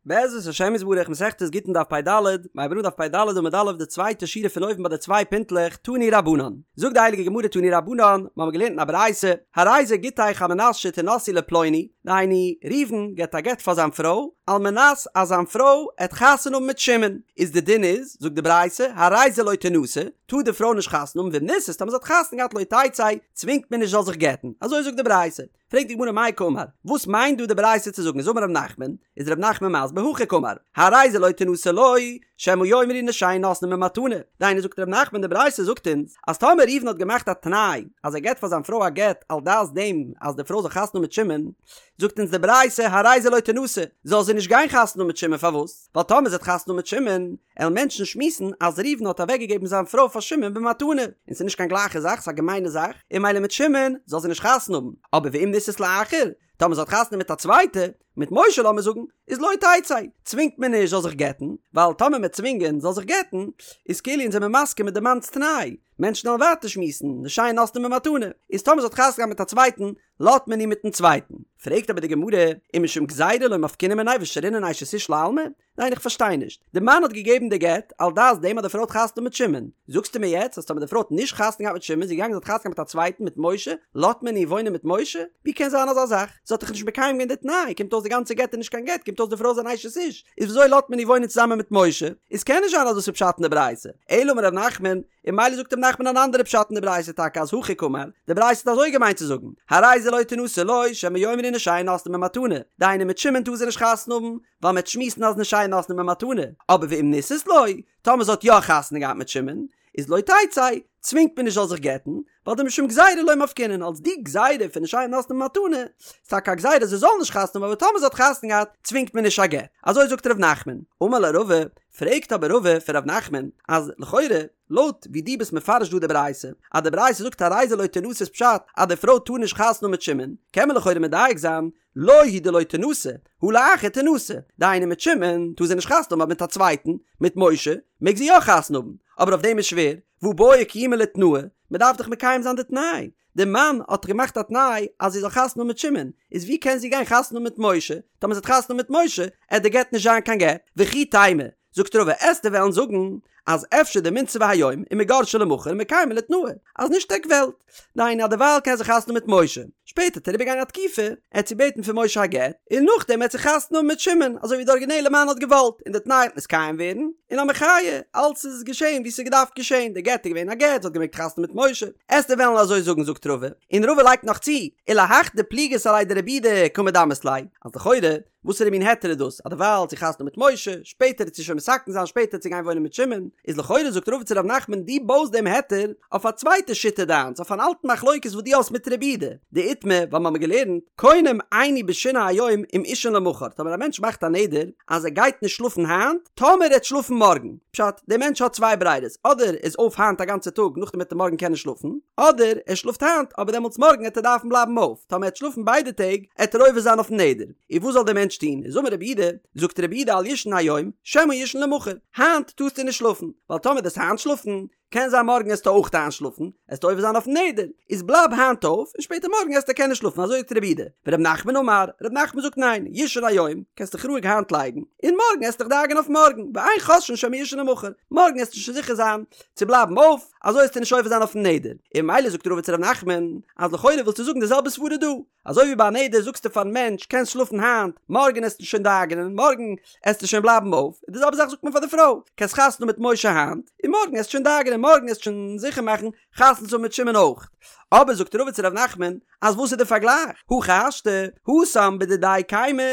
בעזרת השם יתברך מסכת גיטין דף פ"ד, מ'הייבט אן דף פ"ד עמוד א' די צווייטע שורה פון אויבן ביי די צוויי פינטלעך תנו רבנן. זאגט די הייליגע גמרא תנו רבנן, מ'האמיר געלערנט אין א ברייתא, הרי זה גיטך על מנת שתנשאי לפלוני, דהיינו, ראובן געבט א גט פאר זיין פרוי, על מנת אז זיין פרוי עט חתונה האבן מיט שמעון, איז די דין איז, זאגט די ברייתא, הרי זה לא תנשא, טאר די פרוי נישט חתונה האבן ואם נישאת טאמער זי האט חתונה געהאט לא תצא, צווינגט מען נישט זאל זיך גט'ן, אזוי זאגט די ברייתא. פרעגט די גמרא מאי קאמר, וואס מיינט דא די ברייתא צו זאגן איז אמר רב נחמן, איז רב נחמן מסביר הכי קאמר, הרי זה לא תנשא לו, שמא יאמרו נשיהן נותנין במתנה, דהיינו זאגט רב נחמן די ברייתא זאגט אונז אז טאמער ראובן האט געמאכט א תנאי אז ער געט פאר זיין פרוי א גט על דעת דעם אז די פרוי זאל חתונה האבן מיט שמעון, זאגט אונז די ברייתא הרי זה לא תנשא, זאל זי נישט גיין חתונה האבן מיט שמעון פארוואס? ווייל טאמער זי האט חתונה מיט שמעון, עלן מענטשן שמועסן אז ראובן האט אוועקגעגעבן זיין פרוי פאר שמעון במתנה, און ס'איז נישט קיין גלייכע זאך, ס'איז א געמיינע זאך, און ממילא מיט שמעון זאל זי נישט חתונה האבן, אבער ואם נישאת לאחר, טאמער זי האט חתונה מיט א צווייטע, מיט משה לאמיר זאגן, איז לא תצא, צווינגט מען נישט זאל זיך גט'ן, ווייל טאמער מ'עט צווינגען זאל זיך גט'ן, איז כאילו אונז זעמיר מסכים מיט די מאנ'ס תנאי, מענטשן עלן ווייטער שמועסן, נשיהן נותנין במתנה, איז טאמער זי האט חתונה געהאט מיט א צווייטן, לאזט מען איר מיטן צווייטן. פרעגט אבער די גמרא, ומשום גזירה לא מפקינן מיניה ושרינן אשת איש לעלמא? ניין איך פארשטיי נישט, די מאן האט געגעבן די גט על דעת דעם אז די פרוי האט חתונה מיט שמעון, זאגסטו מיר יעצט אז טאמער די פרוי האט נישט חתונה געהאט מיט שמעון זי איז געגאנגען זי האט חתונה געהאט מיט א צווייטן מיט משה, לאזט מען איר וואוינען מיט משה? ווי קען זיין אזא זאך? זי האט דאך נישט מקיים געווען די תנאי, קומט אויס די גאנצע גט איז נישט קיין גט, קומט אויס די פרוי איז אן אשת איש, איז וויאזוי לאזט מען איר וואוינען צוזאמען מיט משה? איז קען נישט זיין אז דאס איז פשט אין די ברייתא, אלא אמר ר' נחמן, און ממילא זאגט ר' נחמן אן אנדערע פשט אין די ברייתא טאקע אז הכי קאמר, די ברייתא האט אזוי געמיינט צו זאגן, הרי זה לא תנשא לו, שמא יאמרו נשיהן נותנין במתנה, דהיינו מיט שמעון טאר זי נישט חתונה האבן, ווייל מ'עט שמועסן אז נשיהן נותנין במתנה, אבער ואם נישאת לו, טאמער זי האט יא חתונה געהאט מיט שמעון, איז לא תצא, צווינגט מען נישט זאל זיך גט'ן, ווייל דמשום גזירה לא מפקינן, אלס די גזירה פון נשיהן נותנין במתנה, איז טאקע א גזירה זי זאל נישט חתונה האבן אבער טאמער זי האט חתונה געהאט צווינגט מען נישט א גט, אזוי זאגט ר' נחמן. אמר ליה רבא, פרעגט אבער רבא פון ר' נחמן, אז לכאורה, לויט ווי דו ביסט מפרש דא די ברייתא, אז די ברייתא זאגט הרי זה לא תנשא איז פשט אז די פרוי טאר נישט חתונה האבן מיט שמעון, קען מען לכאורה מדייק זיין, לו הוא דלא תנשא, הא לאחר תנשא, דהיינו מיט שמעון טאר זי נישט חתונה האבן אבער מיט א צווייטן, מיט משה, מעג זי יא חתונה האבן, אבער אויף דעם איז שווער, והא בעי קיומי לתנאה, מען דארף דאך מקיים זיין די תנאי, די מאן האט דאך געמאכט א תנאי אז זי זאל חתונה האבן מיט שמעון, איז ווי קען זי גיין חתונה האבן מיט משה, טאמער זי האט חתונה מיט משה, עט די גט נישט זיין קיין גט, וכי תימא, זאגט רבא עסטו וועלן זאגן אז אפשר דמינסבא היום ומיגרשה למחר ומקיימא לתנאה, אז נישט עק וועלט, דהיינו אז דערווייל קען זי חתונה האבן מיט משה, שפעטער עט אריבערגיין א תקופה, עט זי בעטן פון משה א גט, און נאכדעם עט זי חתונה האבן מיט שמעון, אזוי ווי די ארגינעלע מאן האט געוואלט, און די תנאי עט נתקיים ווערן, און א מחיה, אלץ איז געשען ווי ס'איז געדארפט געשען, די גט איז געווען א גט, זי האט געמעגט חתונה מיט משה, עסטו וועלן אזוי זאגן זאגט רבא, און רבא לייגט נאך צו, ולהך דפליגת עליה דרבי יהודה קא מדמית ליה, אז לכאורה, וואסערע מין היתר איז דאס אז דערווייל האט זי חתונה מיט משה, שפעטער עט זי שוין מתקן זיין שפעטער עט זי גיין וואוינען מיט שמעון, איז לכאורה זאגט רבא צו ר' נחמן דו בויסט דעם היתר אויף א צווייטע שיטה דיינס אויף אן אלטן מחלוקת וואס דו האסט מיט רבי יהודה, דאיתמר ווייל מ'האמיר געלערנט קונם איני בשינה היום אם אישן למחר טאמער א מענטש מאכט א נדר אז ער גייט נישט שלאפן היינט טאמער ער וועט שלאפן מארגן, פשט, דער מענטש האט צוויי ברירות אדער ער איז אויף היינט א גאנצע טאג נאכדעם וועט ער מארגן קענען שלאפן, אדער ער שלאפט היינט אבער דעמאלטס מארגן עט ער דארפן בלייבן אויף, טאמער ער עט שלאפן ביידע טעג עט ער עובר זיין אויפן נדר. און וואס זאל דער מענטש טון? איז אמר רבי יהודה, זאגט רבי יהודה אל יישן היום, שמא יישן למחר, היינט טארסטו נישט שלאפן, ווייל טאמער דו'סט היינט שלאפן, קען זיין מארגן עסטו אויך איינשלאפן, עסטו עובר זיין אויפן נדר, איז בלייב היינט אויף, און שפעטער מארגן עסטו קענען שלאפן, אזוי זאגט רבי יהודה. ור' נחמן אמר, ר' נחמן זאגט ניין, יישן היום, קענסט דיך רואיג היינט לייגן, און מארגן עסט דיך דאגה'ן אויף מארגן, ואין חוששין שמא יישן למחר, מארגן עסטו שוין זיכער זיין צו בלייבן אויף, אזוי עסטו נישט עובר זיין אויפן נדר. און ממילא זאגט רבא צו ר' נחמן, אז לכאורה ווילסטו זאגן די זעלבע סברא דא, אזוי ווי ביי א נדר זאגסטו פארן מענטש קענסט שלאפן היינט, מארגן עסטו שוין דאגה'נען, מארגן עסטו שוין בלייבן אויף, און די זעלבע זאך זאגט מען פאר די פרוי, קענסט חתונה מיט משה היינט, און מארגן עסטו שוין דאגה'נען, מארגן עסטו שוין זיכער מאכן חתונה צו האבן מיט שמעון אויך. אבער זאגט רבא צו ר' נחמן, אז וואס איז די פארגלייך? הכי השתא, התם בדידיה קיימא,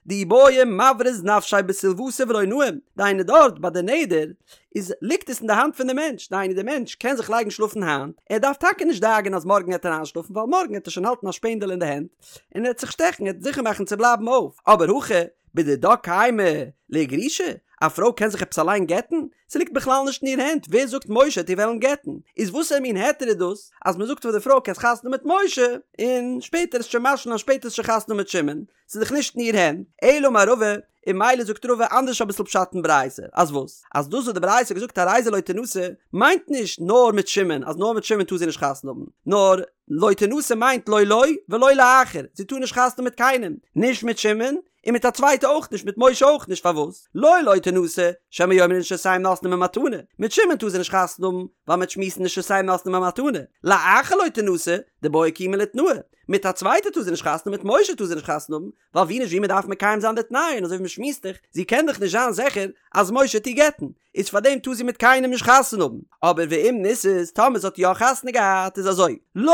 דאי בעי מבריז נפשיה בסילואתא ולא נאים, דהיינו דארט ביי די נדר, איז ליגט עס אין די האנט פון די מענטש, דהיינו די מענטש קען זיך לייגן שלאפן היינט, ער דארף טאקע נישט דאגה'ן אז מארגן העט ער איינשלאפן ווייל מארגן העט ער שוין האלטן א שפענדעל אין די הענט און ער העט זיך שטעכן, ער העט זיכער מאכן צו בלייבן אויף, אבער הכא בדידה קיימא לאיגרושי, א פרוי קען זיך עפעס אליין גט'ן? ס'ליגט בכלל נישט אין איר הענט, ווער זאגט משה העט איר וועלן גט'ן? איז וואסער מין היתר איז דאס אז מ'זאגט פאר די פרוי קענסט חתונה מיט משה און שפעטער עסט שוין משלים זיין שפעטער עסט שוין חתונה מיט שמעון, ס'איז דאך נישט אין איר הענט, אלא אמר רבא, און ממילא זאגט רבא אנדערש אביסל פשט אין ברייתא, אז וואס? אז דאס וואס די ברייתא האט געזאגט הרי זה לא תנשא, מיינט נישט נאר מיט שמעון, אז נאר מיט שמעון טאר זי נישט חתונה האבן, נאר לא תנשא מיינט לא לו ולא לאחר, זי טאר נישט חתונה מיט קיינעם, נישט מיט שמעון, און מיט א צווייטע אויך נישט, מיט משה אויך נישט, פארוואס? לו לא תנשא, שמא יאמרו נשותיהם נותנין במתנה, מיט שמעון טאר זי נישט חתונה האבן, ווייל מ'וועט שמועסן נשותיהם נותנין במתנה, לאחר לא תנשא, דבעיא קיומי לתנאה, מיט א צווייטע טאר זי נישט חתונה האבן, מיט משה טאר זי נישט חתונה האבן, ווייל ווי נישט ווי מ'דארף מקיים זיין די תנאי, און אזוי ווי מ'שמועסט דאך, זי קען דאך נישט זיין זיכער אז משה וועט איר גט'ן, איז פאר דעם טאר זי מיט קיינעם נישט חתונה האבן, אבער ואם נישאת, טאמער זי האט יא חתונה געהאט איז אזוי, לו,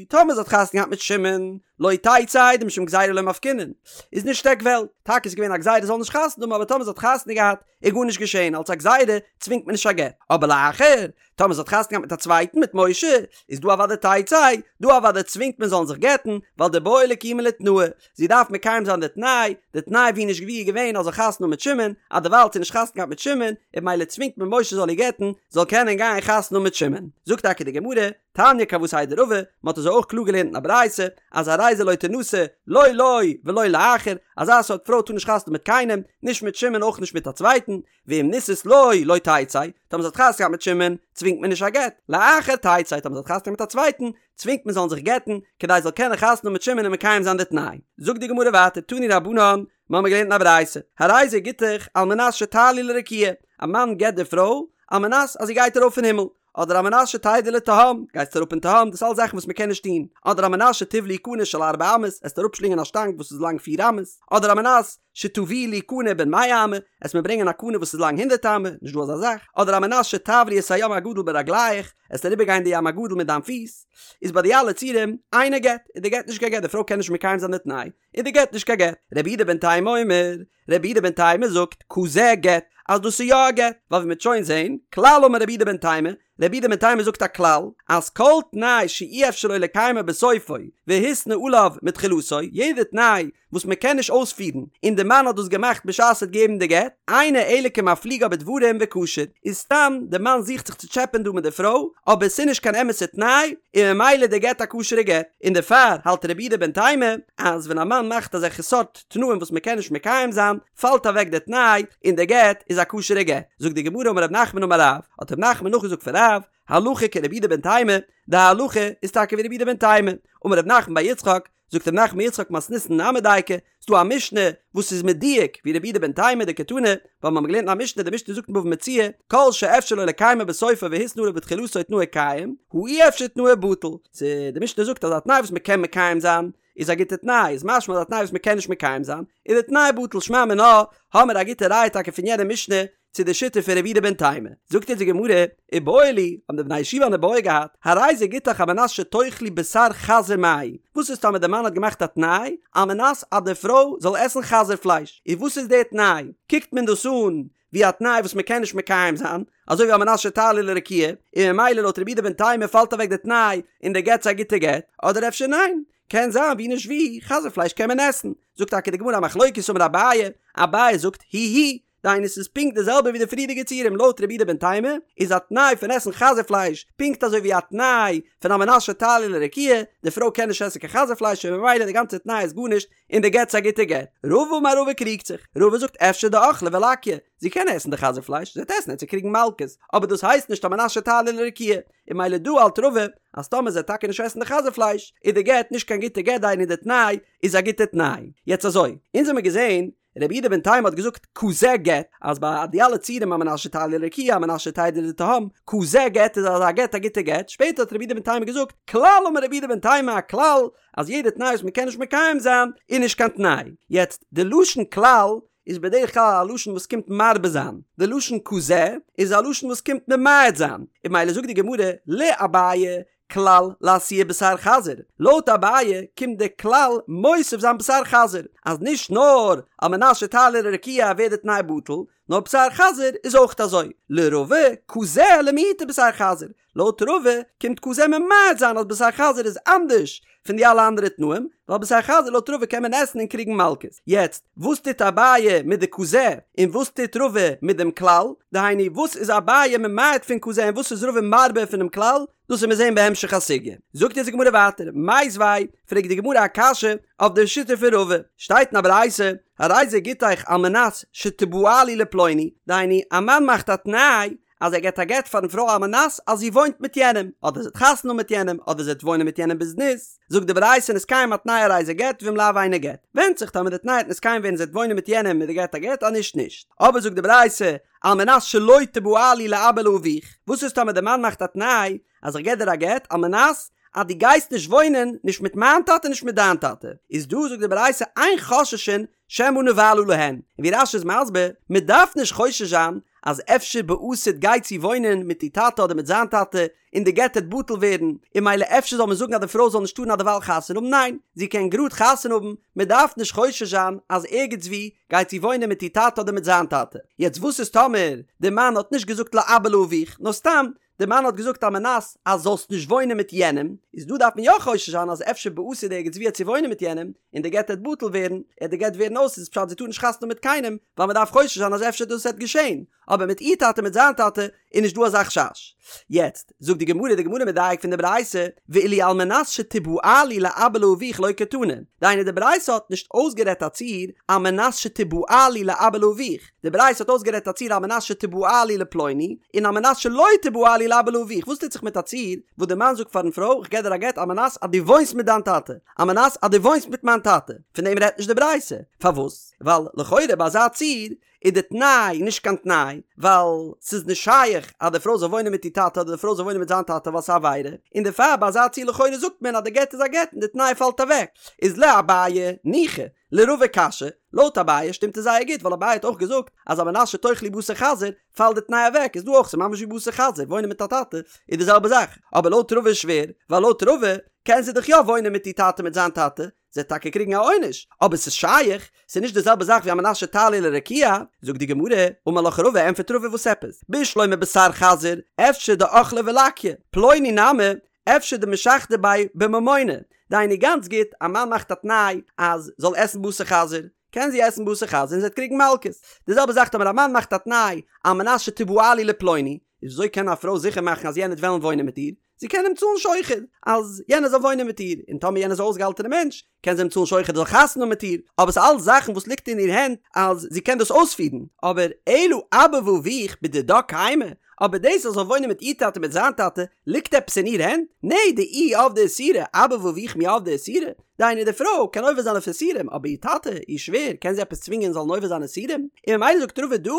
טאמער זי האט חתונה געהאט מיט שמעון, לא תצא דמשום גזירה לא מפקינן, איז נישט עק וועלט, טאקע איז געווען א גזירה זי זאל נישט חתונה האבן אבער טאמער זי האט חתונה געהאט איז גארנישט געשען אלס א גזירה צווינגט מען נישט א גט, אבער לאחר, טאמער זי האט חתונה געהאט מיט א צווייטן מיט משה, איז דא אוודאי תצא, דא אוודאי צווינגט מען זאלן זיך גט'ן, ווייל דבעיא לקיומי לתנאה, זי דארף מקיים זיין די תנאי, די תנאי ווי נישט ווי איז געווען אז זאל חתונה האבן מיט שמעון, אז דערווייל האט זי נישט חתונה געהאט מיט שמעון, און ממילא צווינגט מען משה זאל איר גט'ן, זאל קענען גיין חתונה האבן מיט שמעון. זאגט טאקע די גמרא, תניא כוותיה דרבא, מען האט אזוי אויך קלאר געלערנט אין א ברייתא, אז הרי זו לא תנשא, לא לו ולא לאחר, אזא סארט פרוי טאר נישט חתונה האבן מיט קיינעם, נישט מיט שמעון אויך נישט מיט א צווייטן, ואם נישאת לו לא תצא, טאמער זי האט חתונה געהאט מיט שמעון, צווינגט מען נישט א גט, לאחר תצא, טאמער זי האט חתונה געהאט מיט א צווייטן, צווינגט מען זאלן זיך גט'ן, כדי זי זאל קענען חתונה האבן מיט שמעון און מקיים זיין די תנאי. זאגט די גמרא ווייטער, תנו רבנן, מיר האבן געלערנט אין א ברייתא, הרי זה גיטך על מנת שתעלי לרקיע, א מאן גט די פרוי, על מנת אז זי גייט ארויף אין הימל, אדער על מנת שתרדי לתהום, גייסט אראפ אין תהום, דאס אלס זאכן וואס מען קען נישט טון, אדער על מנת שתבלעי קנה של ארבע אמות, עסט אראפשלינגען א שטאנג וואס איז לאנג פיר אמות, אדער על מנת שתביאי לי קנה בן מאה אמה, עסט מיר ברענגען א קנה וואס איז לאנג הונדערט אמה, נישט דא אזא זאך, אדער על מנת שתעברי את הים הגדול ברגליך, עסט אריבער גיין די ים הגדול מיט דיין פיס, איז ביי די אלע ציורים, אינו גט, איז די גט נישט קיין גט, די פרוי קען נישט מקיים זיין די תנאי, איז די גט נישט קיין גט. רבי יהודה בן תימא אומר, רבי יהודה בן תימא זאגט, כזה גט, אז דאס איז יא א גט, ווייל ווי מ'וועט שוין זעהן, כלל אמר רבי יהודה בן תימא, רבי יהודה בן תימא זאגט א כלל, אז כל תנאי שאי אפשר לו לקיימו בסופו, והתנה עליו מתחילתו, יעדע תנאי וואס מען קען נישט אויספירן, און די מאן האט דאס געמאכט בשעת ער האט געגעבן די גט, אינו אלא כמפליגה בדברים וכשר, איז סתם די מאן זוכט זיך צו טשעפען דא מיט די פרוי, אבער עס איז נישט קיין אמת'ע תנאי, און ממילא די גט א כשר'ע גט, און דערפאר האלט רבי יהודה בן תימא, אז ווען א מאן מאכט אזעלכע סארט תנאים וואס מען קען נישט מקיים זיין, פאלט אוועק די תנאי, און די גט איז א כשר'ע גט. זאגט די גמרא אמר רב נחמן אמר רב, האט רב נחמן נאכגעזאגט פון רב, הלכה כרבי יהודה בן תימא, די הלכה איז טאקע ווי רבי יהודה בן תימא, אמר רב נחמן בר יצחק, זאגט רב נחמן בר יצחק מתניתין נמי דייקא, ס'דא א משנה וואס איז מדויק ווי רבי יהודה בן תימא דקתני, ווייל מ'האמיר געלערנט אין א משנה, די משנה זאגט אין בבא מציעא, כל שאפשר לו לקיימו בסופו והתנה עליו בתחילתו תנאו קיים, הא אי אפשר תנאו בטל. ס' די משנה זאגט אז א תנאי וואס מ'קען מקיים זיין, איז א גוטע תנאי, איז משמע אז א תנאי וואס מ'קען נישט מקיים זיין, איז די תנאי בטל, שמע מינה, האמיר א גוטע ראיה טאקע פון יענע משנה, צו די שיטה פון רבי יהודה בן תימא. זאגט אונז די גמרא, איבעיא להו, האבן די בני ישיבה אן איבעיא געהאט, הרי זה גיטך על מנת שתאכלי בשר חזיר מהו, וואס איז טאמער די מאן האט געמאכט א תנאי, על מנת אז די פרוי זאל עסן חזיר פלייש, איז וואס איז די תנאי? קוקט מען דאס אן ווי א תנאי וואס מען קען נישט מקיים זיין, אזוי ווי על מנת שתעלי לרקיע, און ממילא לויט רבי יהודה בן תימא פאלט אוועק די תנאי און די גט איז א גוטע גט, אדער אפשר ניין? קען זיין ווי נישט ווי, חזיר פלייש קען מען עסן. זאגט טאקע די גמרא א מחלוקת אמר אביי, אביי זאגט היא היא, דהיינו ס'איז פונקט די זעלבע ווי די פריערדיגע ציורים לויט רבי יהודה בן תימא איז א תנאי פון עסן חזיר פלייש פונקט אזוי ווי א תנאי פון על מנת שתעלי לרקיע, די פרוי קען נישט עסן קיין חזיר פלייש און ממילא די גאנצע תנאי איז גארנישט און די גט איז א גוטע גט. רבא אמר רבא קריגט זיך, רבא זאגט אפשר דאכלה ולקיא, זי קען עסן די חזיר פלייש, זי וועט עסן וועט זי קריגן מלקות, אבער דאס הייסט נישט על מנת שתעלי לרקיע, און ממילא דא האלט רבא אז טאמער זי וועט טאקע נישט עסן די חזיר פלייש איז די גט נישט קיין גוטע גט דהיינו די תנאי איז א גוטע תנאי. יעצט אזוי, אונז האמיר געזען רבי יהודה בן תימא האט געזאגט כזה גט, אז ביי די אלע ציורים על מנת שתעלי לרקיע על מנת שתרדי לתהום, כזה גט איז אזא גט א גוטע גט, שפעטער האט רבי יהודה בן תימא געזאגט כלל אמר רבי יהודה בן תימא א כלל אז יעדע תנאי וואס מען קען נישט מקיים זיין איז נישט קיין תנאי. יעצט די לשון כלל איז בדרך כלל א לשון וואס קומט מרבה זיין, די לשון כזה איז א לשון וואס קומט ממעט זיין, און ממילא זאגט די גמרא לאביי כלל לאתויי בשר חזיר, לויט אביי קומט די כלל מוסיף זיין בשר חזיר, אז נישט נאר על מנת שתעלי לרקיע ווערט די תנאי בטל, נאר בשר חזיר איז אויך אזוי, לרבא כזה למעוטי בשר חזיר, לויט רבא קומט כזה ממעט זיין אז בשר חזיר איז אנדערש פון די אלע אנדערע תנאים, ווייל בשר חזיר לויט רבא קען מען עסן און קריגן מלקות. יעצט, וואס טוט אביי מיט די כזה, און וואס טוט רבא מיט דעם כלל? דהיינו, וואס איז אביי ממעט פון כזה און וואס איז רבא מרבה פונעם כלל? דאס וועט מען זען בהמשך הסוגיא. זאגט אונז די גמרא ווייטער, מיתיבי, פרעגט די גמרא א קשיא אויף די שיטה פון רבא, שטייט אין א ברייתא, הרי זה גיטך על מנת שתבעלי לפלוני, דהיינו, א מאן מאכט א תנאי. אז ער געבט א גט פארן פרוי על מנת אז זי וואוינט מיט יענעם, אדער זי האט חתונה מיט יענעם, אדער זי וועט וואוינען מיט יענעם בזנות, זאגט די ברייתא נתקיים התנאי הרי זה גט ואם לאו אינו גט. ווענדט זיך טאמער די תנאי וועט נתקיים ווערן זי וועט וואוינען מיט יענעם איז די גט א גט אז נישט נישט. אבער זאגט די ברייתא על מנת שלא תבעלי לאבא ולאביך, וואס איז טאמער די מאן מאכט א תנאי אז איך געב דיר א גט על מנת אז דו גייסט נישט וואוינען נישט מיט מיין טאטע נישט מיט דיין טאטע, איז דא זאגט די ברייתא אין חוששין שמא נבעלה להן, און ווי רש"י איז מסביר, מען דארף נישט חושש זיין אז אפשר בעתיד גייט זי וואוינען מיט איר טאטע אדער מיט זיין טאטע און די גט העט בטל ווערן, און ממילא אפשר זאל מען זאגן אז די פרוי זאל נישט טארן אדערווייל חתונה האבן, ניין, זי קען גראד חתונה האבן, מען דארף נישט חושש זיין אז ערגעץ וואו גייט זי וואוינען מיט איר טאטע אדער מיט זיין טאטע. יעצט וואס איז טאמער די מאן האט נישט געזאגט לאבא ולאביך, נאר סתם די מאן האט געזאגט על מנת אז זאלסט נישט וואוינען מיט יענעם, איז דא דארף מען יא חושש זיין אז אפשר בעתיד ערגעץ וואו העט זי וואוינען מיט יענעם, און די גט העט בטל ווערן, העט די גט ווערן אויס איז פשט זי טאר נישט חתונה האבן מיט קיינעם, ווייל מען דארף חושש זיין אז אפשר דאס העט געשען, אבער מיט איר טאטע מיט זיין טאטע איז נישט דא אזא חשש. יעצט זאגט די גמרא, די גמרא מדייק פון די ברייתא, ואילו על מנת שתבעלי לאבא ולאביך לא קתני, דהיינו די ברייתא האט נישט אויסגערעדט א ציור על מנת שתבעלי לאבא ולאביך, די ברייתא האט אויסגערעדט א ציור על מנת שתבעלי לפלוני, און על מנת שלא תבעלי לאבא ולאביך, וואס טוט זיך מיט א ציור וואס די מאן זאגט פארן פרוי איך געב דיר א גט על מנת אז דו וואוינסט מיט דיין טאטע, על מנת אז דו וואוינסט מיט מיין טאטע, פון דעם רעדט נישט די ברייתא, פארוואס? ווייל לכאורה ביי אזא ציור איז די תנאי נישט קיין תנאי, ווייל ס'איז נישט שייך אז די פרוי זאל וואוינען מיט איר טאטע אדער די פרוי זאל וואוינען מיט זיין טאטע ווייל ס'איז א עבירה, און דערפאר ביי אזא ציור לכאורה זאגט מען אז די גט איז א גט און די תנאי פאלט אוועק, איז לאביי ניחא, לרבא קשיא, לויט אביי שטימט עס זייער גוט ווייל אביי האט אויך געזאגט אז על מנת שתאכלי בשר חזיר פאלט די תנאי אוועק איז דא אויך ס'איז ממש ווי בשר חזיר וואוינען מיט א טאטע איז די זעלבע זאך אבער לויט רבא איז שווער ווייל לויט רבא קען זי דאך יא וואוינען מיט איר טאטע מיט זיין טאטע זי וועט טאקע קריגן א עונש אבער ס'איז שייך ס'איז נישט די זעלבע זאך ווי על מנת שתעלי לרקיע זאגט די גמרא אמר לך רבא ענפערט רבא וואס עפעס בשלמא בשר חזיר אפשר דאכלה ולקיא פלוני נמי אפשר דמשחדא ביה בממונא, דהיינו גאנץ גוט, א מאן מאכט א תנאי אז זאל עסן בשר חזיר, קען זי עסן בשר חזיר און זי וועט קריגן מלקות. די זעלבע זאך טאמער א מאן מאכט א תנאי על מנת שתבעלי לפלוני, איז וויאזוי קען א פרוי זיכער מאכן אז יענער וועט וועלן וואוינען מיט איר? זי קען אים צאלן שוחד אז יענער זאל וואוינען מיט איר, און טאמער יענער איז א אויסגעהאלטענע מענטש, קען זי אים צאלן שוחד ער זאל חתונה האבן מיט איר, אבער ס'איז אלס זאכן וואס ליגט אין איר הענט אז זי קען דאס אויספירן, אבער אלא אבא ואביך בדידה קיימי, אבער דאס אז זאל וואוינען מיט איר טאטע מיט זיין טאטע ליגט עפעס אין איר הענט? נע דאיהי עבדה איסורא, אבא ואביך מי עבדי איסורא? דהיינו די פרוי קען עובר זיין אויף איסורים אבער איר טאטע, איר שווער, קען זי עפעס צווינגען זאלן עובר זיין איסורים? און ממילא זאגט רבא דא,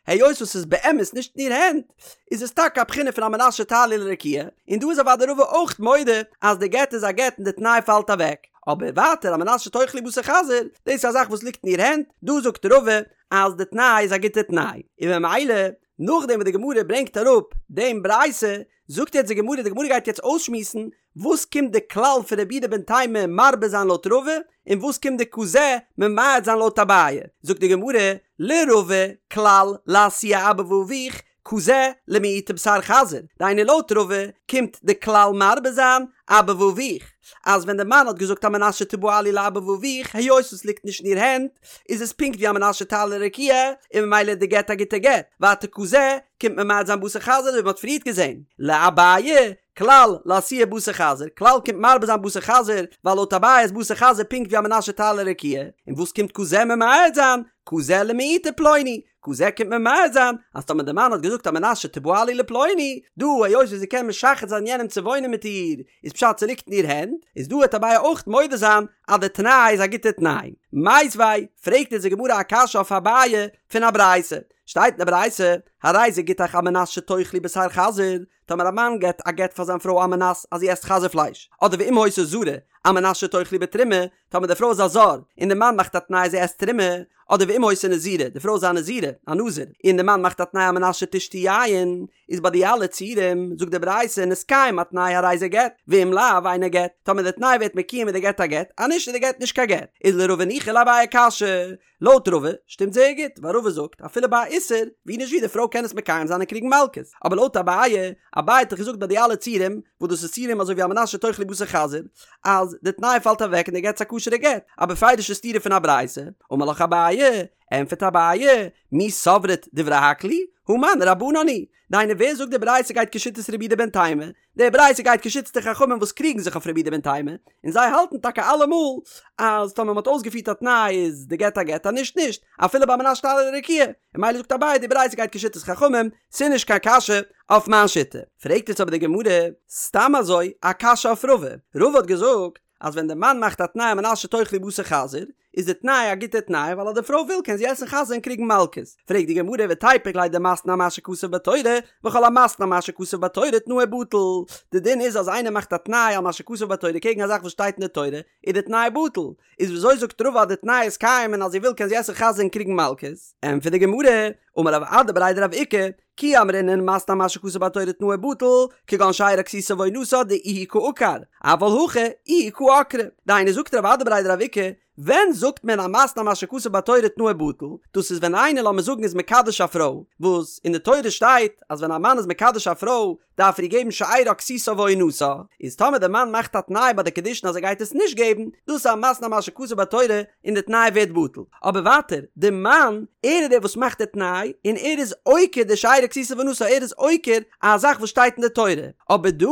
היות וואס ס'איז באמת נישט אין איר הענט, איז עס טאקע א בחינה פון על מנת שתעלי לרקיע, און דא איז אוודאי רבא אויך מודה אז די גט איז א גט און די תנאי פאלט אוועק, אבער ווייטער על מנת שתאכלי בשר חזיר, דאס איז א זאך וואס ליגט אין איר הענט, דא זאגט רבא אז די תנאי איז א גוטע תנאי, און ממילא נאכדעם וואס די גמרא ברענגט אראפ דעם ברייתא, זאגט יעצט די גמרא, די גמרא גייט יעצט אויסשמועסן וואס קומט די כלל פון רבי יהודה בן תימא מרבה זיין לויט רבא, און וואס קומט די כזה ממעט זיין לויט אביי? זאגט די גמרא, לרבא, כלל, לאתויי אבא ואביך, כזה, למעוטי בשר חזיר, דהיינו לויט רבא קומט די כלל מרבה זיין אבא ואביך, אז ווען די מאן האט געזאגט על מנת שתבעלי לאבא ואביך, היות עס ליגט נישט אין איר הענט, איז עס פונקט ווי על מנת שתעלי לרקיע, און ממילא איז די גט א גוטע גט, ווייטער כזה, קומט ממעט זיין בשר חזיר אזוי ווי מען האט פריערט געזען, לאביי, כלל, לאתויי בשר חזיר, כלל קומט מרבה זיין בשר חזיר, ווייל לויט אביי איז בשר חזיר פונקט ווי על מנת שתעלה לרקיע, און וואס קומט כזה ממעט זיין? כזה למעוטי פלוני, כזה קומט ממעט זיין, אז טאמער די מאן האט געזאגט על מנת שתבעלי לפלוני, דא היות ווי זי קען משחד זיין יענעם צו וואוינען מיט איר, איז פשט ס'ליגט אין איר הענט, איז דא וועט אביי אויך מודה זיין אז די תנאי איז א גוטע תנאי. מיתיבי, פרעגט אונז די גמרא א קשיא אויף אביי פון א ברייתא, שטייט אין די ברייתא, הרי זה גיטך על מנת שתאכלי בשר חזיר, טאמער א מאן געט א גט פאר זיין פרוי על מנת אז זי עסט חזיר פלייש, אדער ואם היתה זרה, על מנת שתאכלי בתרומה, טאמער די פרוי איז א זר, און די מאן מאכט א תנאי זי עסט תרומה, אדער ואם היתה נזירה, די פרוי איז א נזירה, א נזיר, און די מאן מאכט א תנאי על מנת שתשתי יין, איז ביי די אלע ציורים, זאגט די ברייתא, נתקיים התנאי הרי זה גט, ואם לאו אינו גט, טאמער די תנאי ווערט מקוים איז די גט א גט, אז נישט איז די גט נישט קיין גט, איז לרבא ניחא לאביי קשיא, לויט רבא שטימט זייער גוט, ווייל רבא זאגט אפילו ביי א איסור, ווי נישט ווי די פרוי קען עס מקיים זיין און קריגן מלקות, אבער לויט אביי, אביי האט דאך געזאגט ביי די אלע ציורים, וואס דאס איז ציורים אזוי ווי על מנת שתאכלי בשר חזיר, אז די תנאי פאלט אוועק און די גט איז א כשר'ע גט, א בפירוש'ע סתירה פון א ברייתא, אמר לך אביי, ענטפערט אביי, מי סברת דברי הכל היא? הא מני רבנן היא. דהיינו ווער זאגט די ברייתא גייט כשיטת רבי יהודה בן תימא? די ברייתא גייט כשיטת די חכמים וואס קריגן זיך אויף רבי יהודה בן תימא, און זיי האלטן טאקע אלעמאל אז טאמער מ'האט אויסגעפירט א תנאי איז די גט א גט אז נישט נישט, אפילו ביי על מנת שתעלה לרקיע, און ממילא זאגט אביי די ברייתא גייט כשיטת חכמים, ס'איז נישט קיין קשיא אויף מיין שיטה. פרעגט יעצט אבער די גמרא סתם אזוי א קשיא אויף רבא, רבא האט געזאגט אז ווען די מאן מאכט א תנאי על מנת שתאכלי בשר חזיר, איז די תנאי א גוטע תנאי ווייל אז די פרוי וויל קען זי עסן חזיר און קריגן מלקות. פרעגט די גמרא ותיפוק ליה דמתנה על מה שכתוב בתורה, וכל המתנה על מה שכתוב בתורה תנאו בטל. די דין איז אז איינער מאכט א תנאי על מה שכתוב בתורה קעגן א זאך וואס שטייט אין די תורה, איז די תנאי בטל. איז וויאזוי זאגט רבא אז די תנאי איז קיים און אז זי וויל קען זי עסן חזיר און קריגן מלקות? ענטפערט די גמרא, אמר רב אדא בריה דרב איקא, כי אמרינן מתנה על מה שכתוב בתורה תנאו בטל, כגון שארה כסותה ועונתה דאיהו קא עקר, אבל הכא איהי קא עקרה. דהיינו זאגט רב אדא בריה דרב איקא, ווען זאגט מען המתנה על מה שכתוב בתורה תנאו בטל, דאס איז ווען איינער לאמיר זאגן איז מקדש א פרוי, וואס אין די תורה שטייט אז ווען א מאן איז מקדש א פרוי דארף ער איר געבן שארה כסותה ועונתה, איז טאמער די מאן מאכט א תנאי ביי די קידושין אז ער גייט עס נישט געבן, דאס איז א מתנה על מה שכתוב בתורה און די תנאי ווערט בטל. אבער ווייטער, די מאן, ער איז דער וואס מאכט די תנאי, און ער איז עוקר די שארה כסותה ועונתה, ער איז עוקר א זאך וואס שטייט אין די תורה. אבער דא,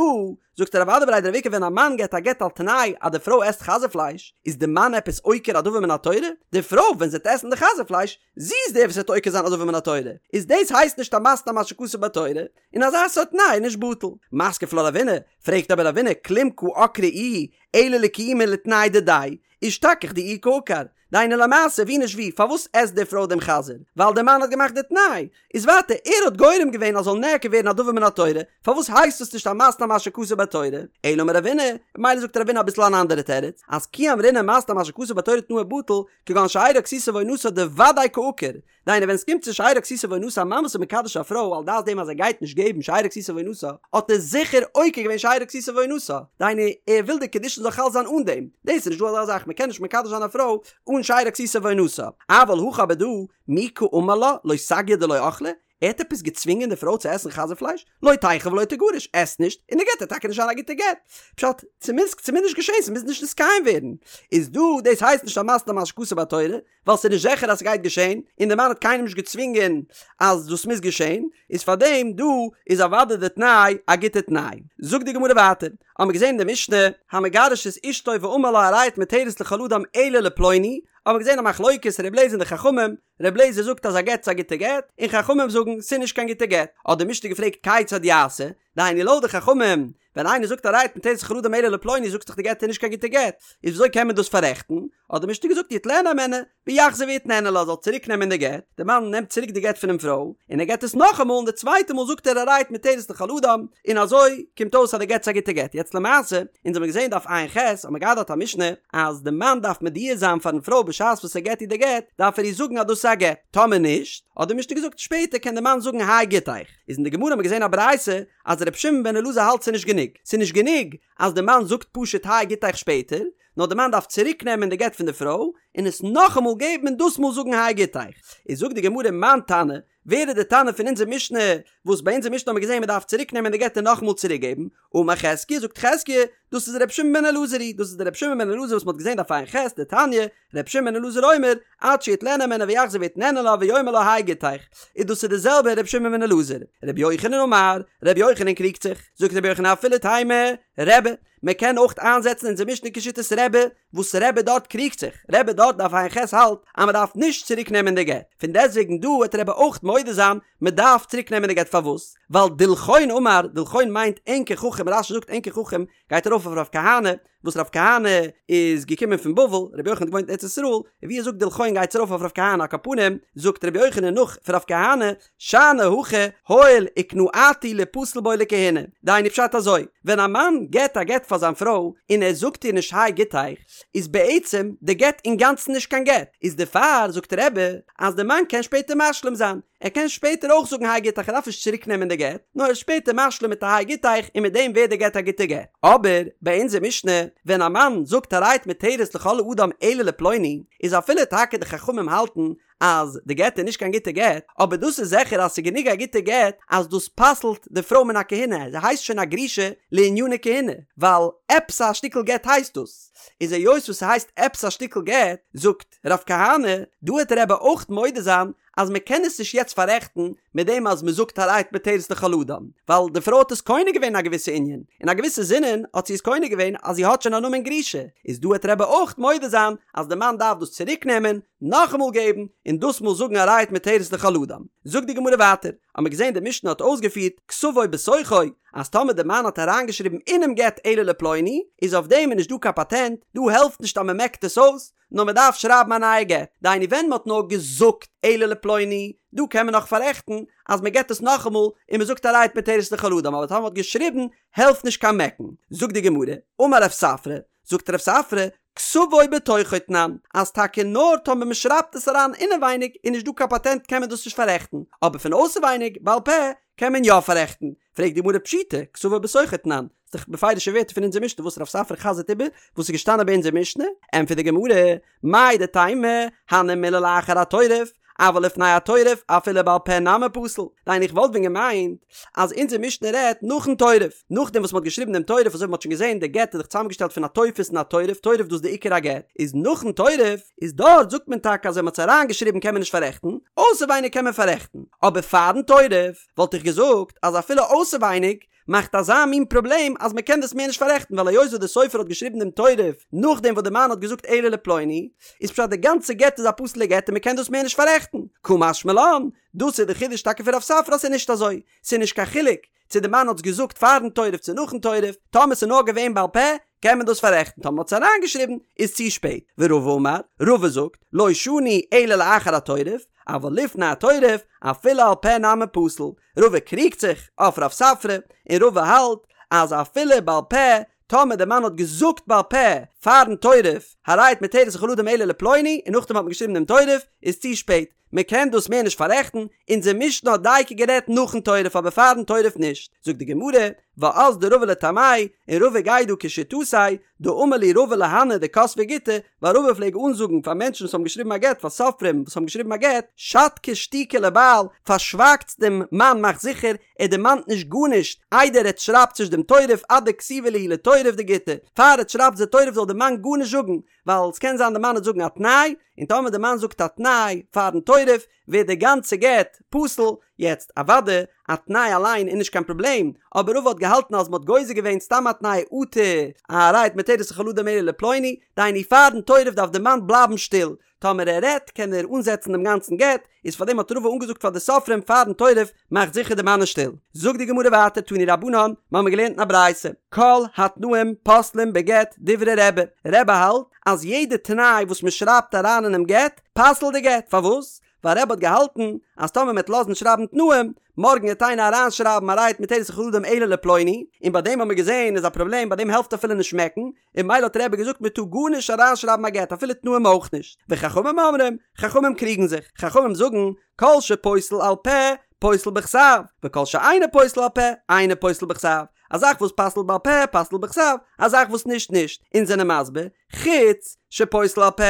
זאגט רב אדא בריה דרב איקא ווען א מאן געבט א גט על תנאי אז די פרוי עסט חזיר פלייש, איז די מאן עפעס עוקר א דבר מן התורה? די פרוי ווען זי וועט עסן די חזיר פלייש, זי איז דער וואס וועט עוקר זיין א דבר מן התורה, איז דאס הייסט נישט א מתנה על מה שכתוב בתורה, און אזא סארט תנאי איז נישט בטל. מתקיף לה רבינא, פרעגט אבער רבינא, כלום קא עקרה איהי, אלא לקיומי לתנאי דידיה, אישתכח דאיהו קא עקר. דהיינו למעשה ווי נישט ווי, פארוואס עסט די פרוי דעם חזיר? ווייל דער מאן האט געמאכט די תנאי. איז ווייטער, ער האט גורם געווען אז זאל נעקר ווערן א דבר מן התורה, פארוואס הייסט עס נישט א מתנה על מה שכתוב בתורה? אלא אמר רבינא, ממילא זאגט רבינא אביסל אן אנדערע תירוץ, אז כי אמרינן מתנה על מה שכתוב בתורה תנאו בטל, כגון שארה כסותה ועונתה דודאי קא עקר, דהיינו ווען עס קומט צו שארה כסותה ועונתה א מאן וואס איז מקדש א פרוי על דעת דעם אז ער גייט נישט געבן שארה כסותה ועונתה האט ער זיכער עוקר געווען שארה כסותה ועונתה, דהיינו ער וויל די קידושין זאל חל זיין אן דעם, דאס איז נישט דא אזא זאך מען קען נישט מקדש זיין א פרוי אן שארה כסותה ועונתה, אבל הכא אבער דא מי קאמר לה לא סגיא דלא אכלה, ער האט עפעס געצווינגען די פרוי צו עסן חזיר פלייש? לא תיכול ולא תגרש, עס נישט, און די גט וועט טאקע נישט זיין א גוטע גט. פשט, ס'מוז ס'מוז נישט געשען, ס'מוז נישט נתקיים ווערן. איז דא, דאס הייסט נישט א מתנה על מה שכתוב בתורה, ווייל ס'איז נישט זיכער אז ס'גייט געשען, און די מאן האט קיינעם נישט געצווינגען אז דאס מוז געשען, איז פארדעם דא איז אוודאי די תנאי א גוטע תנאי. זאגט די גמרא ווייטער, האמיר געזען אין די משנה, המגרש את אשתו ואמר לה הרי את מותרת לכל אדם אלא לפלוני, האמיר געזען א מחלוקת ר' אליעזר און די חכמים, ר' אליעזר זאגט אז א גט איז א גוטע גט, און חכמים זאגן ס'איז נישט קיין גוטע גט. האט די משנה געפרעגט כיצד יעשה, דהיינו לויט די חכמים, ווען איינער זאגט הרי את מותרת לכל אדם אלא לפלוני זאגסט דאך די גט איז נישט קיין גוטע גט, איז וויאזוי קען מען דאס פאררעכטן? האט די משנה געזאגט יטלנה הימנה ויחזור ויתננה לה זאל צוריק נעמען די גט, די מאן נעמט צוריק די גט פונעם פרוי, און ער געט עס נאכאמאל און די צווייטע מאל זאגט ער הרי את מותרת לכל אדם, און אזוי קומט אויס אז די גט איז א גוטע גט. יעצט למעשה, אונז האבן געזען דף ע"ח, האט מען געהאט דארט א משנה, אז די מאן דארף מודיע זיין פארן פרוי בשעת וואס ער געט איר די גט, דארף ער איר זאגן אז דאס איז א גט, טאמער נישט, האט די משנה געזאגט, שפעטער קען די מאן זאגן הי גיטיך. איז אין די גמרא האט מען געזען א ברייתא, אז ר' שמעון בן אלעזר האלט ס'איז נישט גענוג, ס'איז נישט גענוג אז די מאן זאגט פשוט הי גיטיך שפעטער, נאר די מאן דארף צוריק נעמען די גט פון די פרוי, און עס נאכאמאל געבן און דאס מאל זאגן הי גיטיך. איז זאגט די גמרא מאן תנא, ווער איז די תנא פון אונזער משנה, וואס ביי אונזער משנה האט מען געזען מען דארף צוריק נעמען די גט און נאכאמאל צוריק געבן, אמר חזקיה, זאגט חזקיה, דאס איז ר' שמעון בן אלעזר היא, דאס איז דער ר' שמעון בן אלעזר וואס מען האט געזען דף ע"ח, דתניא, ר' שמעון בן אלעזר אומר, עד שיטלנה הימנה ויחזור ויתננה לה ויאמר לה הי גיטיך, איז דאס איז די זעלבע ר' שמעון בן אלעזר. ר' יוחנן אמר, ר' יוחנן קריגט זיך, זאגט ר' יוחנן אפילו תימא, רבי, מען קען אויך איינזעצן אונזער משנה כשיטת רבי, וואס רבי דארט קריגט זיך, רבי דארט דף ע"ח האלט אז מען דארף נישט צוריק נעמען די גט, פון דעסטוועגן דא וועט רבי אויך מודה זיין מען דארף צוריק נעמען די גט פארוואס? ווייל דילכון אמר, דילכון מיינט ענקער חכם, רש"י זאגט ענקער חכם גייט ארויף אויף רב כהנא, וואס רב כהנא איז געקומען פון בבל, רבי יוחנן האט געוואוינט אין ארץ ישראל, און ווי ער זאגט דילכון גייט עס ארויף אויף רב כהנא, על כל פנים זאגט רבי יוחנן נאך פון רב כהנא, שאני הכא הואיל וקנאתו ליפסל בו לכהונה, דהיינו פשט אזוי, ווען א מאן געט א גט פאר זיין פרוי און ער זאגט איר נישט הי גיטיך, איז בעצם די גט אינגאנצן נישט קיין גט, איז דערפאר זאגט רבי אז די מאן קען שפעטער משלים זיין, ער קען שפעטער אויך זאגן הי גיטיך ער דארף נישט צוריק נעמען די גט, נאר ער איז שפעטער משלים מיט א הי גיטיך און מיט דעם ווערט די גט א גוטע גט. אבער ביי אונזער משנה ווען א מאן זאגט הרי את מותרת לכל אדם אלא לפלוני, איז אפילו טאקע די חכמים האלטן. אז די גט איז נישט קיין גוטע גט, אבער דאס איז זיכער אז ס'איז גענוג א גוטע גט אז דאס פסל'ט די פרוי מן הכהונה, זי הייסט שוין א גרושה לעניני כהונה, ווייל עפעס א שטיקל גט הייסט דאס, איז היות וואס ס'הייסט עפעס א שטיקל גט, זאגט רב כהנא, דא העט רבי אויך מודה זיין אז מ'קען עס נישט יעצט פאררעכטן מיט דעם אז מ'זאגט הרי את מותרת לכל אדם, ווייל די פרוי האט עס קונה געווען אין א געוויסע ענין, אין א געוויסע זינען האט זי עס קונה געווען אז זי האט שוין א נאמען גרושה, איז דא העט רבי אויך מודה זיין אז די מאן דארף דאס צוריק נעמען, נאכאמאל געבן, און דאס מאל זאגן הרי את מותרת לכל אדם. זאגט די גמרא ווייטער, האמיר געזען די משנה האט אויסגעפירט כתבו בתוכו, אז טאמער די מאן האט אריינגעשריבן אינעם גט אלא לפלוני, איז אויף דעם איז נישט דא קיין פאטענט, דא העלפט נישט אז מען מעקט עס אויס, נאר מען דארף שרייבן א נייע גט, דהיינו ווען מען האט נאר געזאגט אלא לפלוני, דא קען מען נאך פאררעכטן אז מען געבט עס נאכאמאל און מען זאגט הרי את מותרת לכל אדם, אבער טאמער מען האט געשריבן העלפט נישט קיין מעקן. זאגט די גמרא, אמר רב ספרא, זאגט רב ספרא, כתבו בתוכו תנן, אז טאקע נאר טאמער מען שרייבט עס אריין אינעווייניג איז נישט דא קיין פאטענט קען מען דאס נישט פאררעכטן, אבער פון אויסערווייניג בעל פה קען מען יא פאררעכטן, פרעגט די גמרא פשיטא, כתבו בתוכו תנן, ס'איז דאך בפירוש'ע ווערטער פון אונזער משנה וואס רב ספרא חזר'ט איבער וואס איז געשטאנען ביי אונזער משנה, ענטפערט די גמרא, מהו דתימא, הני מילי לאחר התורף, אבל לפני התורף אפילו בעל פה נמי פסיל, דהיינו איך וואלט ווען געמיינט אז אונזער משנה רעדט נאכן תורף, נאכדעם וואס מ'האט געשריבן דעם תורף אזוי ווי מ'האט שוין געזען די גט איז דאך צוזאמגעשטעלט פון א טופס און א תורף, תורף דאס איז די עיקר הגט, איז נאכן תורף איז דארט זאגט מען טאקע אז ווען מ'האט עס אריינגעשריבן קען מען נישט פאררעכטן, אויסערווייניג קען מען פאררעכטן, אבער פארן תורף וואלט איך געזאגט אז אפילו אויסערווייניג מאכט אזא מין פראבלעם אז מען קען דאס מער נישט פאררעכטן ווייל היות וואס דער סופר האט געשריבן דעם תורף נאכדעם וואס דער מאן האט געזאגט אלא לפלוני איז פשט די גאנצע גט איז א פסול'ע גט און מען קען דאס מער נישט פאררעכטן קא משמע לן דאס איז די חידוש טאקע פון רב ספרא אז ס'איז נישט אזוי ס'איז נישט קיין חילוק צו די מאן האט עס געזאגט פארן תורף צו נאכן תורף טאמער ס'איז נאר געווען בעל פה קען מען דאס פאררעכטן טאמער מ'האט עס אריינגעשריבן איז צו שפעט ורבא אמר רבא זאגט לא שנו אלא לאחר התורף אבל לפני התורף אפילו על פה נמי פסיל רבא קריגט זיך אויף רב ספרא, און רבא האלט אז אפילו בעל פה, טאמער די מאן האט געזאגט בעל פה פארן תורף, הרי את מותרת לכל אדם אלא לפלוני, און נאכדעם האט מען געשריבן דעם תורף, איז צו שפעט, מען קען דאס מער נישט פאררעכטן, אונזער משנה האט דייקא גערעדט נאכן תורף אבער פארן תורף נישט, זאגט די גמרא, ואזדא רבא לטעמיה, און רבא גייט דא כשיטתיה, דאמר להו רבא להנהו דכתבי גיטי, ווייל רבא פלעג אנזאגן פאר מענטשן וואס האבן געשריבן א גט, פאר סופרים וואס האבן געשריבן א גט, שתקו שתיקה לבעל, פארשווייגטס דעם מאן מאכט זיכער ער דערמאנט נישט גארנישט, איידער עטס שרייבטס נישט דעם תורף עד דכתיבו להו לתורף דגיטא, פאר עטס שרייבטס די תורף זאל דער מאן גארנישט זאגן, ווייל ס'קען זיין די מאן וועט זאגן א תנאי, און טאמער די מאן זאגט א תנאי פארן תורף, ווערט די גאנצע גט פסול, יעצט אוואדע א תנאי אליין איז נישט קיין פראבלעם, אבער רבא האט געהאלטן אז מ'האט גוזר געווען סתם א תנאי אטו הרי את מותרת לכל אדם אלא לפלוני, דהיינו פארן תורף דארף די מאן בלייבן שטיל, טאמער ער רעדט קען ער אנזעצן דעם גאנצן גט, איז פארדעם האט רבא אנגעזאגט פאר די סופרים פארן תורף מאכט זיכער די מאן איז שטיל. זאגט די גמרא ווייטער תנו רבנן, מ'האמיר געלערנט אין א ברייתא, כל התנאים פוסלים בגט דברי רבי, רבי האלט אז יעדע תנאי וואס מ'שרייבט אריין אינעם גט פסל'ט די גט, פארוואס? ווייל רבי האט געהאלטן אז טאמער מ'עט לאזן שרייבן תנאים, מארגן עט איינער אריינשרייבן הרי את מותרת לכל אדם אלא לפלוני, און ביי דעם האט מען געזען איז א פראבלעם ביי דעם העלפט אפילו נישט מעקן, און ממילא האט רבי געזאגט מען טאר גארנישט אריינשרייבן א גט אפילו תנאים אויך נישט, וחכמים אומרים, חכמים קריגן זיך, חכמים זאגן, כל שפוסל על פה, פוסל בכתב, וכל שאינו פוסל על פה, אינו פוסל בכתב, א זאך וואס פסל'ט בעל פה, פסל'ט בכתב, א זאך וואס נישט נישט, אונז זענען מסביר, חוץ שפוסל על פה,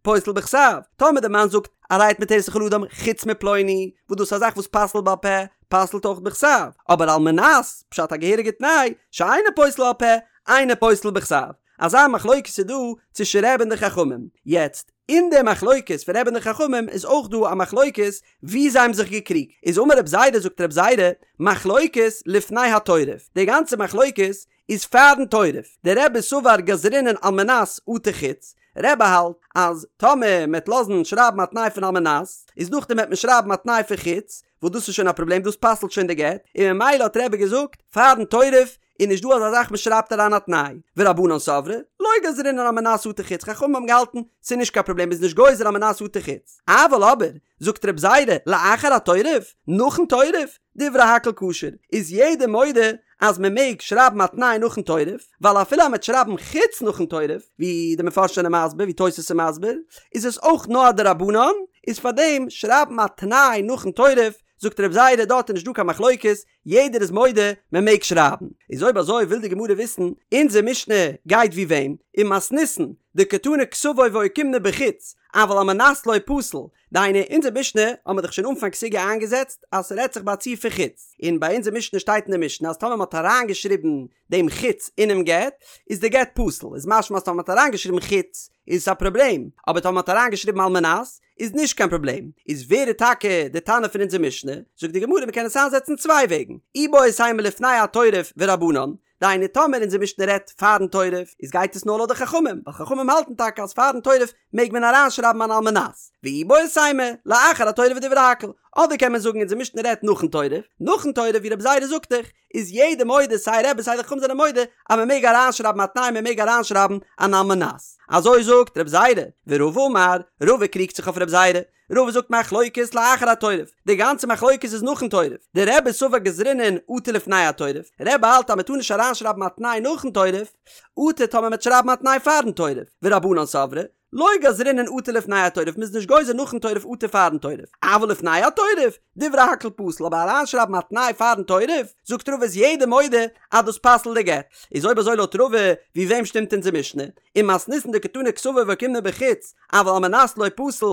פוסל בכתב, טאמער די מאן זאגט הרי את מותרת לכל אדם חוץ מפלוני, וואס דאס איז א זאך וואס פסל'ט בעל פה, פסל'ט אויך בכתב, אבער על מנת, פשט א געהעריגע תנאי, שאינו פוסל על פה, אינו פוסל בכתב. אזא מחלוקת איז דא צווישן רבי און די חכמים. יעצט, אין די מחלוקת פון רבי און די חכמים איז אויך דא א מחלוקת וואו זיי האבן זיך געקריגט. איז אמר רב זירא זאגט רב זירא, מחלוקת לפני התורף. די גאנצע מחלוקת איז פארן תורף. דרבי סבר גזרינן על מנת אטו חוץ. רבי האלט אז טאמער מ'עט לאזן שרייבן א תנאי פון על מנת, איז נאכדעם וועט מען שרייבן א תנאי פון חוץ, וואס דאס איז שוין א פראבלעם דאס פסל'ט שוין די גט, און ממילא האט רבי געזאגט פארן תורף איז נישט דא אזא זאך מען שרייבט אריין א תנאי, ורבנן סברי לא גזרינן על מנת אטו חוץ, חכמים האבן געהאלטן ס'איז נישט קיין פראבלעם מ'איז נישט גוזר על מנת אטו חוץ, אבל אבער זאגט רב זירא לאחר התורף, נאכן תורף, דברי הכל כשר, איז יעדער מודה אז מען מעג שרייבן א תנאי נאכן תורף, ווייל אפילו אז מען וועט שרייבן חוץ נאכן תורף, ווי די מפרשים זענען מסביר, ווי תוס' איז מסביר, איז עס אויך נאר א דרבנן, איז פארדעם שרייבן א תנאי נאכן תורף, זאגט רב זירא דארט איז נישט דא קיין מחלוקת, יעדער איז מודה מען מעג שרייבן. איז אויב אזוי וויל די גמרא וויסן, אונזער משנה גייט ווי וועם? ומתניתין. דקתני כתבו ואוקימנא בחוץ, אבל על מנת לא פסיל, דהיינו אונזער משנה האט מען דאך שוין אנפאנג סוגיא איינגעזעצט אז ס'רעדט זיך ביי א ציור פון חוץ, און ביי אונזער משנה שטייט אין די משנה אז טאמער מ'האט אריינגעשריבן דעם חוץ אינעם גט איז די גט פסול, איז משמע אז טאמער מ'האט אריינגעשריבן חוץ איז עס א פראבלעם, אבער טאמער מ'האט אריינגעשריבן על מנת איז נישט קיין פראבלעם, איז ווער איז טאקע די תנא פון אונזער משנה? זאגט די גמרא מ'קען עס איינזעצן צוויי וועגן, איבעית אימא לפני התורף ורבנן, דהיינו טאמער אונזער משנה רעדט פארן תורף איז גייט עס נאר לויט די חכמים, ווייל חכמים האלטן טאקע אז פארן תורף מעג מען אריינשרייבן אן על מנת, ואיבעית אימא לאחר התורף ודברי הכל, אדער קען מען זאגן אונזער משנה רעדט נאכן תורף, נאכן תורף ווי רבי זירא זאגט דאך איז יעדער מודה סיי רבי סיי די חכמים זענען מודה אז מען מעג אריינשרייבן א תנאי מען מעג אריינשרייבן אן על מנת, אזוי זאגט רבי זירא, ורבא אמר, רבא קריגט זיך אויף רבי זירא, רבא זאגט מחלוקת לאחר התורף, די גאנצע מחלוקת איז נאכן תורף, דרבי סבר גזרינן אטו לפני התורף, רבי האלט אז מען טאר נישט אריינשרייבן א תנאי נאכן תורף, אטו טאמער מען וועט שרייבן א תנאי פארן תורף, ורבנן סברי, לא גזרינן אטו לפני התורף, מ'איז נישט גוזר נאכן תורף אטו פארן תורף, אבל לפני התורף, דברי הכל פסול, אבער אריינשרייבן א תנאי פארן תורף, זאגט רבא איז יעדער מודה אז דאס פסל'ט די גט, איז אויב אזוי לויט רבא, ווי וועם שטימט אונזער משנה? ומתניתין דקתני כתבו ואוקימנא בחוץ, אבל על מנת לא פסיל,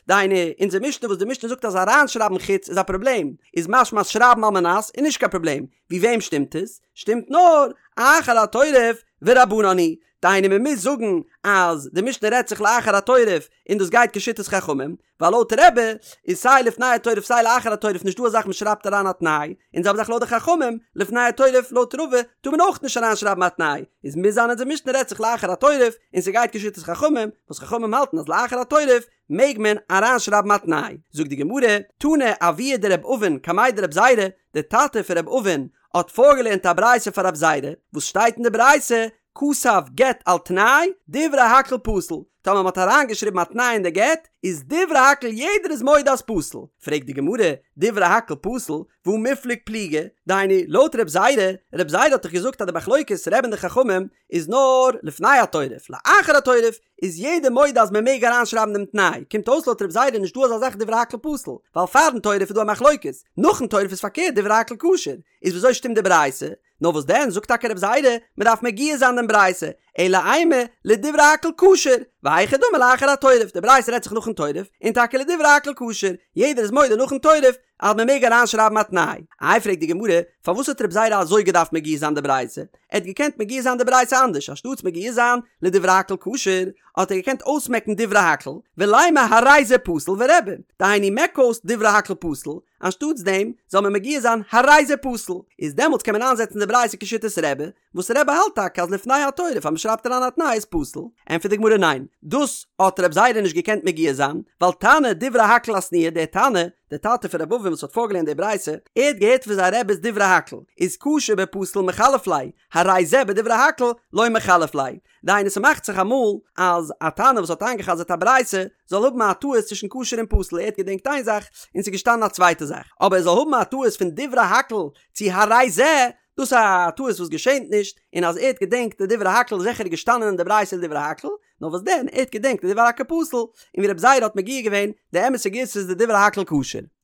דהיינו, אונזער משנה וואס די משנה זאגט אז אריינשרייבן חוץ איז א פראבלעם, איז משמע אז שרייבן על מנת איז נישט קיין פראבלעם, ווי וועם שטימט עס? שטימט נאר אחר התורף ורבנן היא, דהיינו מען מוז זאגן אז די משנה רעדט זיך לאחר התורף און דאס גייט כשיטת חכמים, ווייל לויט רבי איז סיי לפני התורף סיי לאחר התורף נישט דא א זאך מען שרייבט אריין א תנאי, און זעלבע זאך לויט די חכמים, לפני התורף לויט רבא טאר מען אויך נישט אריין שרייבן א תנאי, איז מוז זיין אונזער משנה רעדט זיך לאחר התורף און ס'גייט כשיטת חכמים, וואס חכמים האלטן אז לאחר התורף מעג מען אריין שרייבן א תנאי. זאגט די גמרא, תנא אבוה דרב אבין קמיה דרב זירא, די טאטע פון רב אבין האט פארגעלערנט א ברייתא פאר רב זירא, וואס שטייט אין די ברייתא, כתב גט על תנאי, דברי הכל פסול, טאמער מ'האט אריינגעשריבן א תנאי אין די גט, איז דברי הכל יעדער איז מודה אז פסול. פרעגט די גמרא, דברי הכל פסול, והא מיפלג פליגי, דהיינו, לויט רב זירא, רב זירא האט דאך געזאגט אז די מחלוקת רבי און די חכמים איז נאר לפני התורף, לאחר התורף איז יעדער מודה אז מ'מעג אריינשרייבן דעם תנאי, קומט אויס לויט רב זירא נישט דא אזא זאך דברי הכל פסול, ווייל פארן תורף איז דא א מחלוקת, נאכן תורף איז פארקערט דברי הכל כשר, איז וויאזוי שטימט די ברייתא? נאר וואס דען זאגט טאקע רב זירא, מען דארף מגיה זיין דעם ברייתא, אלא אימא לדברי הכל כשר, והיכי דמי לאחר התורף, די ברייתא רעדט זיך נאכן תורף, און טאקע לדברי הכל כשר, יעדער איז מודה נאכן תורף אז מען מעג אריין שרייבן א תנאי. איי פרעגט די גמרא, פארוואס האט רב זירא אזוי געדארפט מגיה זיין די ברייתא? ער האט געקענט מגיה זיין די ברייתא אנדערש, אנשטאטס מגיה זיין לדברי הכל כשר, האט ער געקענט אויסמעקן דברי הכל, ולימא הרי זה פסול ורבי, דהיינו מעק אויס דברי הכל פסול, אנשטאטס דעם זאל מען מגיה זיין הרי זה פסול, איז דעמאלטס קען מען איינזעצן די ברייתא כשיטת רבי, וואס רבי האלט טאקע אז לפני התורף אז מען שרייבט אריין א תנאי איז פסול, ענטפערט די גמרא ניין, דאס האט רב זירא נישט געקענט מגיה זיין, ווייל תנא דברי הכל אתנייה, דער תנא, דער טאטע פון רב אבין וואס האט פארגעלערנט די ברייתא, ער האט געהערט פון זיין רבי'ס דברי הכל, איז כשר בפסול מחלף ליה, הרי זה בדברי הכל לא מחלף ליה, דהיינו ס'מאכט זיך אמאל אז א תנא וואס האט איינגע'חזר'ט א ברייתא זאל האבן א טעות צווישן כשר און פסול ער האט געדענקט איין זאך און ס'איז געשטאנען א צווייטע זאך אבער ער זאל האבן א טעות פון דברי הכל צו הרי זה דאס איז א טעות וואס געשענט נישט און אז ער האט געדענקט די דברי הכל איז זיכער געשטאנען אין די ברייתא דברי הכל נאר וואס דען ער האט געדענקט די דברי הכל פסול און ווי רב זירא האט מגיה געווען די אמת'ע גירסא איז די דברי הכל כשר.